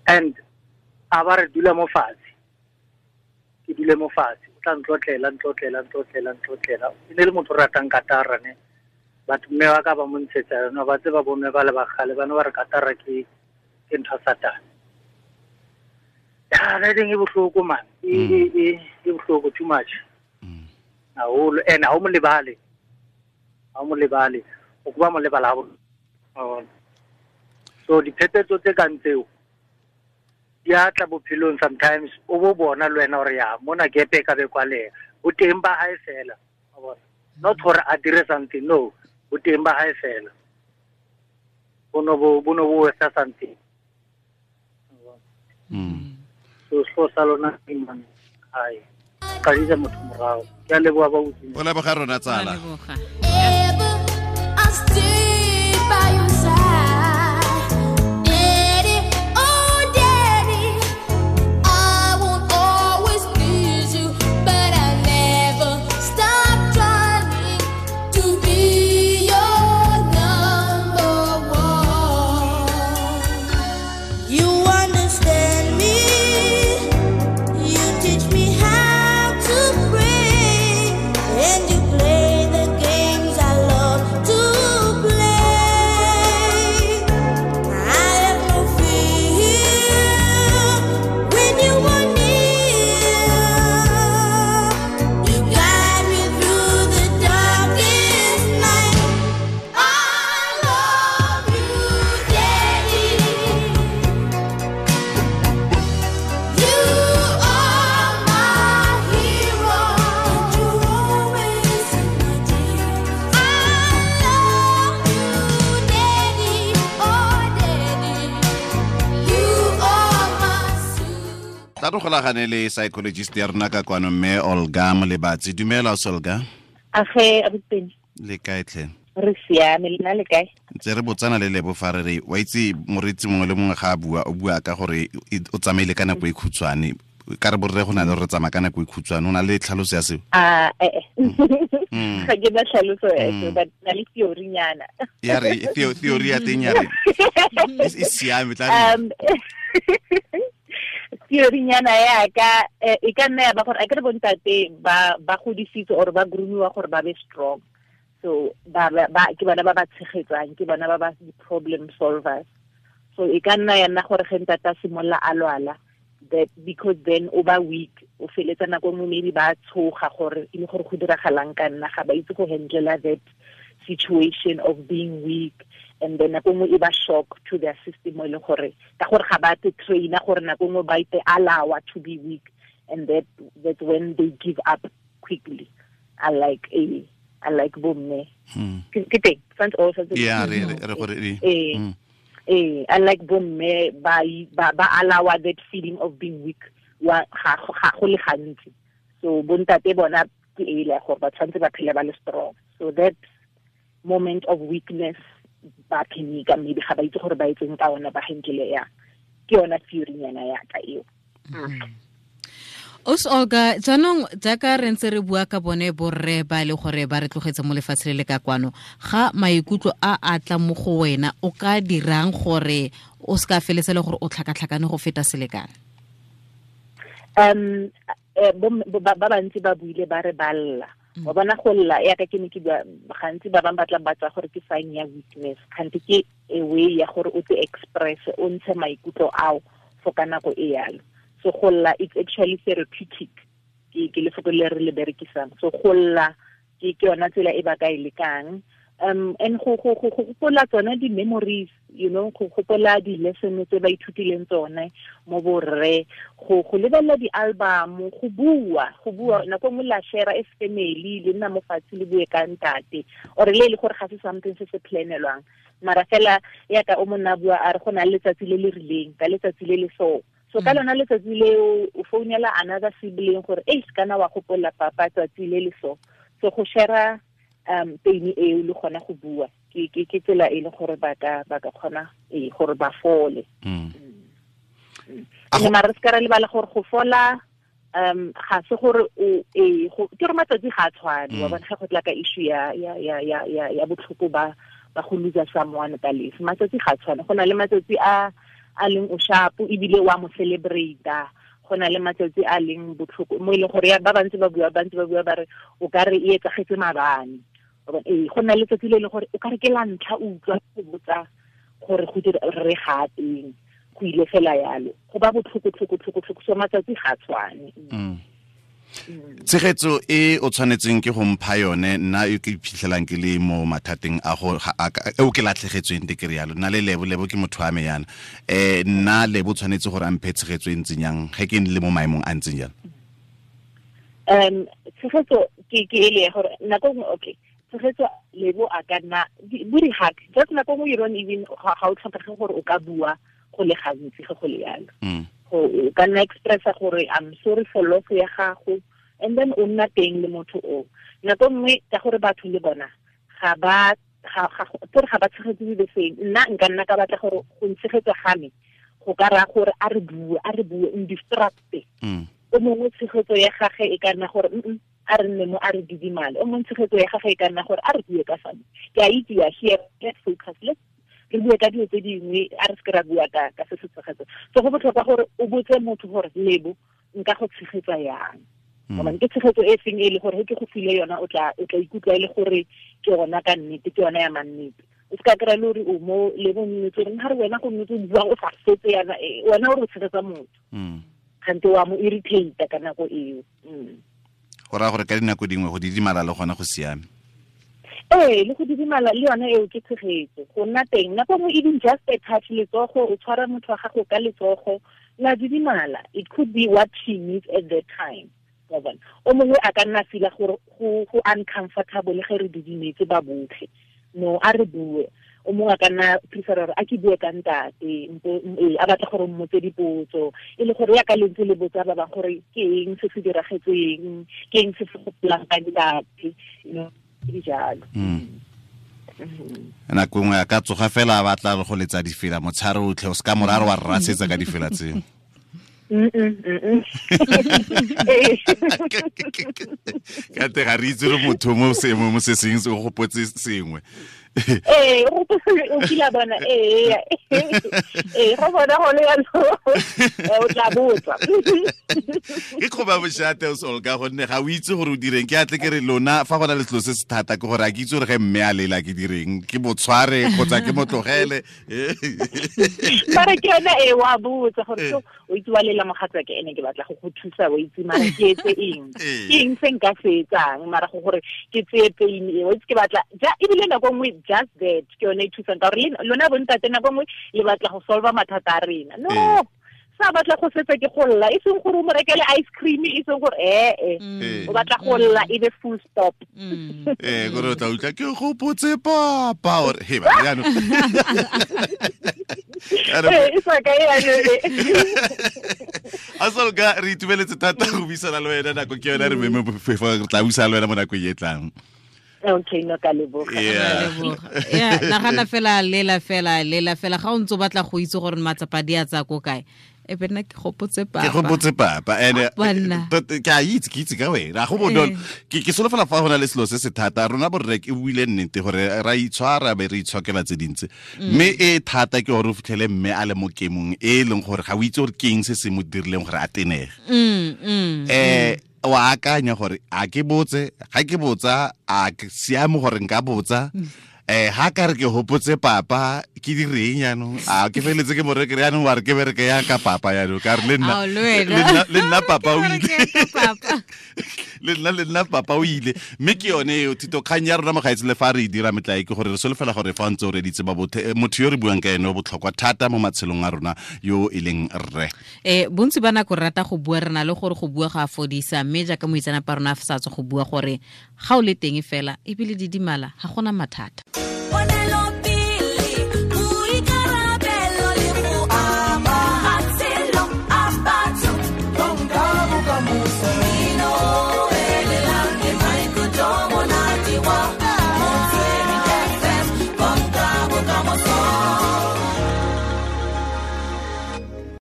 And a ba re dula mo fatshe. Ke dule mo fatshe. O tla ntlotlela. E ne le motho o ratang katara ne. Batho mme wa ka ba mo ntshetsa yona ba tseba bomme ba le bagale ba ne ba re katara ke ntho ya Satane. Ya le ding e bohloko man. E bohloko too much. Haholo and ha o mo lebale. O kuba mo lebala ha. So diphephetso tse kang tseo di a tla bophelong sometimes o bo bona le wena hore ya mona gepe ka be kwalela. O teng ba hae fela. Wa bona. Not gore a dire something, no. O teng ba hae fela. Bono bo etsa something. So so sa lona man. Ai. Ka ditsa motho morao. Ke a leboha ba utlwile. O leboga rona tsala. I'll stay by your side. Daddy, oh daddy, I won't always please you, but I never stop trying to be your number one. You understand me, you teach me how to pray, and you play the games I love to play. I have no fear when you are near. You guide me through the darkest night. I love you, Daddy. You are my hero, And you're always in my dreams. I love you, Daddy. Oh, Daddy, you are my super. Tla re golagane le psychologist ya rona ka kwano mme Olga Molebatsi. Dumela Olga. Age abuti Le kae tlhe? re siame le nna le kae? Ntse re botsana le Lebo fa re re wa itse moreetsi mongwe le mongwe ga a bua o bua ka gore o tsamaile ka nako e khutshwane. Ka re borre go na le re tsamaya ka nako e khutshwane o na le tlhaloso ya seo. Ah ga ke na tlhaloso ya seo, but na le theory nyana. Ya re theory ya teng ya re e siame tla re Theory nyana ya ka e ka nna ya ba gore a ke re bontate ba godisitswe or ba groomiwa gore ba be strong. So ba ke bona ba ba tshegetsang, ke bona ba ba di-problem solvers. So e ka nna ya nna gore ge ntate a simolola a lwala, that because then o ba weak, o feletsa nako nngwe maybe ba tshoga gore e le gore go diragalang ka nna, ga ba itse go handle that situation of being weak, and then nako nngwe e ba shock to their system, e leng gore ka gore ga ba te trainer gore nako nngwe ba ite allow to be weak, and that's when they give up quickly. I like a Unlike bomme ke teng santse o santse yeah re re gore unlike bomme ba ba allow that feeling of being weak wa ga go le gantsi. So bontate bona ke e le gore ba tshwanetse ba phele ba le strong. So that moment of weakness ba phenika maybe ga ba itse gore ba etseng ka ona ba henkile ya ke yona theory nyana ya ka eo. Os Olga, jaanong jaaka re ntse re bua ka bone borre ba le gore ba re tlogetse mo lefatshe le le ka kwano, ga maikutlo a a tla mo go wena o ka dirang gore o se ka feletse le gore o tlhakatlhakane go feta selekane? Ba bantsi ba buile ba re ba lla. Wa bona go lla ya ka ke ne ke bua gantsi ba bangwe ba tla ba tsaya gore ke sign ya weakness, kgante ke a way ya gore o te express o ntshe maikutlo ao for ka nako e yalo. So go lla it's actually therapeutic, ke lefoko le re le berekisang. So go lla ke yona tsela e ba ka e lekang. And go gopola tsone di-memories, you know, go gopola di-lesson tse ba ithutileng tsone mo borre, go lebelela di-album, go bua nako nngwe la share as family, le nna mo fatshe le bue ka ntate or le le gore ga se something se se planelwang, mara fela yaka o monna bua a re go na le letsatsi le le rileng ka letsatsi le le so. So ka lona letsatsi leo o founela another sibling gore e kana wa gopola papa tsatsi le le so. So go share pain eo le gona go bua ke tsela e le gore ba ka kgona gore ba fole. Ene mara se ka re lebala gore go fola ga se gore o ke re matsatsi ga a tshwane, wa bona ga go tla ka issue ya botlhoko ba go lose someone ka lefu, matsatsi ga a tshwane. Go na le matsatsi a leng o sharp ebile wa mo celebrate, go na le matsatsi a leng botlhoko mo e leng gore ba bantsi ba bua ba re o ka re e etsagetse maabane. Go na le letsatsi le leng gore o ka re ke la ntlha o utlwa go botsa gore go dira re ga teng, go ile fela yalo, go ba botlhoko tlhoko. So matsatsi ga tshwane. Tshegetso e o tshwanetseng ke go mpha yone nna e ke iphitlhelang ke le mo mathateng a go eo ke latlhegetsweng te ke rialo, nna le Lebo ke motho wa me yana, nna Lebo tshwanetse gore a mphe tshegetso e ntseng yang ge ke le mo maemong a ntseng jalo? Tshegetso ke ele ya gore nako nngwe okay tshegetso Lebo a ka nna bo di-hug, just nako nngwe you don't even ga o tlhokege gore o ka bua go le gantsi ge go le yalo. O ka nna expressa gore I'm sorry for loss ya gago, and then o nna teng le motho o. Nako nngwe ka gore batho le bona ga ba tshegetse the same. Nna nka nna ka batla gore go ntshegetsa ga me go ka raya gore a re bue ndistracte. O mongwe tshegetso ya gage e ka nna gore a re nne mo a re didimale, o mongwe tshegetso ya gage e ka nna gore a re bue ka sone. Ke a itse ya here, let's focus, let's re bue ka dilo tse dingwe, a re se ke ra bua ka se se tshegetso. So go botlhokwa gore o botse motho gore Lebo nka go tshegetsa yang, gobane ke tshegetso e seng e le gore ge ke go file yona o tla ikutlwa e le gore ke yona ka nnete, ke yona ya mannete. O se ka kry-a le gore o mo Lebo nnetse gore ga re wena go nnetse o bua o sa fetse yana, wena o re o tshegetsa motho kgante wa mo irritate ka nako eo. Go raya gore ka dinako dingwe go didimala le gona go siame. Le go didimala le yone eo ke tshegetso, go nna teng nako nngwe even just a touch, letsogo, o tshwara motho wa gago ka letsogo la didimala, it could be what she needs at that time. O mongwe a ka nna feel gore go uncomfortable ge re didimetse ba botlhe, no a re bue. O mongwe a ka nna prefer gore a ke bue ka ntate, a batla gore mmotse dipotso, e le gore ya ka lentse le botsa ba bangwe gore ke eng se se diragetseng, ke eng se se gopolang ka ntate, you know, dijalo. Nako nngwe a ka tsoga fela a batla go letsa difela motshare otlhe, o se ka morare wa rrasetsa ka difela tseo. Ka te ga re itse re motho mo seemong mo se seng se o gopotse sengwe. O kile bona go bona go le yalo, o tla botsa. Ke kgoba boshate o Olga, gonne ga o itse gore o direng. Ke atle ke re lona fa go na le selo se se thata ke gore a ke itse gore ge mme a lela ke direng, ke mo tshware kgotsa ke mo tlogele. Mara ke yona e wa botsa gore so o itse wa lela mogatsa ke ene ke batla go go thusa, o itse mara ke etse eng, ke eng se nka se etsang mara go gore ke tseye pain e, o itse ke batla ja ebile nako nngwe just that ke yone e thusang ka gore lona bontate nako nngwe le batla go solve mathata a rena. No, Sa batla go setsa ke go lla, e seng gore o mo rekele ice cream, e seng gore o batla go lla e be full stop. Gore o tla utlwa ke gopotse papa or he ba jaanong. E sa ka ya. Asolka, re itumeletse thata go buisana le wena, nako ke yone re meme re tla buisana le wena mo nakong e tlang. Okay, no, ka leboga. Yeah, nagana fela lela fela lela fela ga o ntse o batla go itse gore matsapa di a tsaya ko kae, e be nna ke gopotse papa. Ke gopotse papa and ke a itse, ke itse ka wena go bonolo. Ke solofela fa go na le selo se se thata rona borre, ke buile nnete gore ra itshwara be re itshokela tse dintsi, mme e thata ke gore o fitlhele mme a le mo kemong e leng gore ga o itse gore ke eng se se mo dirileng gore a tenege. Wa akanya gore a ke botse, ga ke botsa a ke siame gore nka botsa, ha ka re ke hopotse papa ke direng jaanong, a ke feletse ke mo rekere jaanong, wa re ke bereke ya ka papa jaanong, ka re le nna le nna papa o ile, le nna papa o ile. Mme ke yone eo thito kgang ya rona mogaetsi, le fa re e dira metlae ke gore re solofela gore fa ntse o reditse ba bothe motho yo re buang ka ene o botlhokwa thata mo matshelong a rona yo e leng rre. Bontsi ba nako re rata go bua, re na le gore go bua ga a fodisa, mme jaaka moitsanapa rona a sa tswa go bua gore ga o le teng fela ebile didimala ga gona mathata.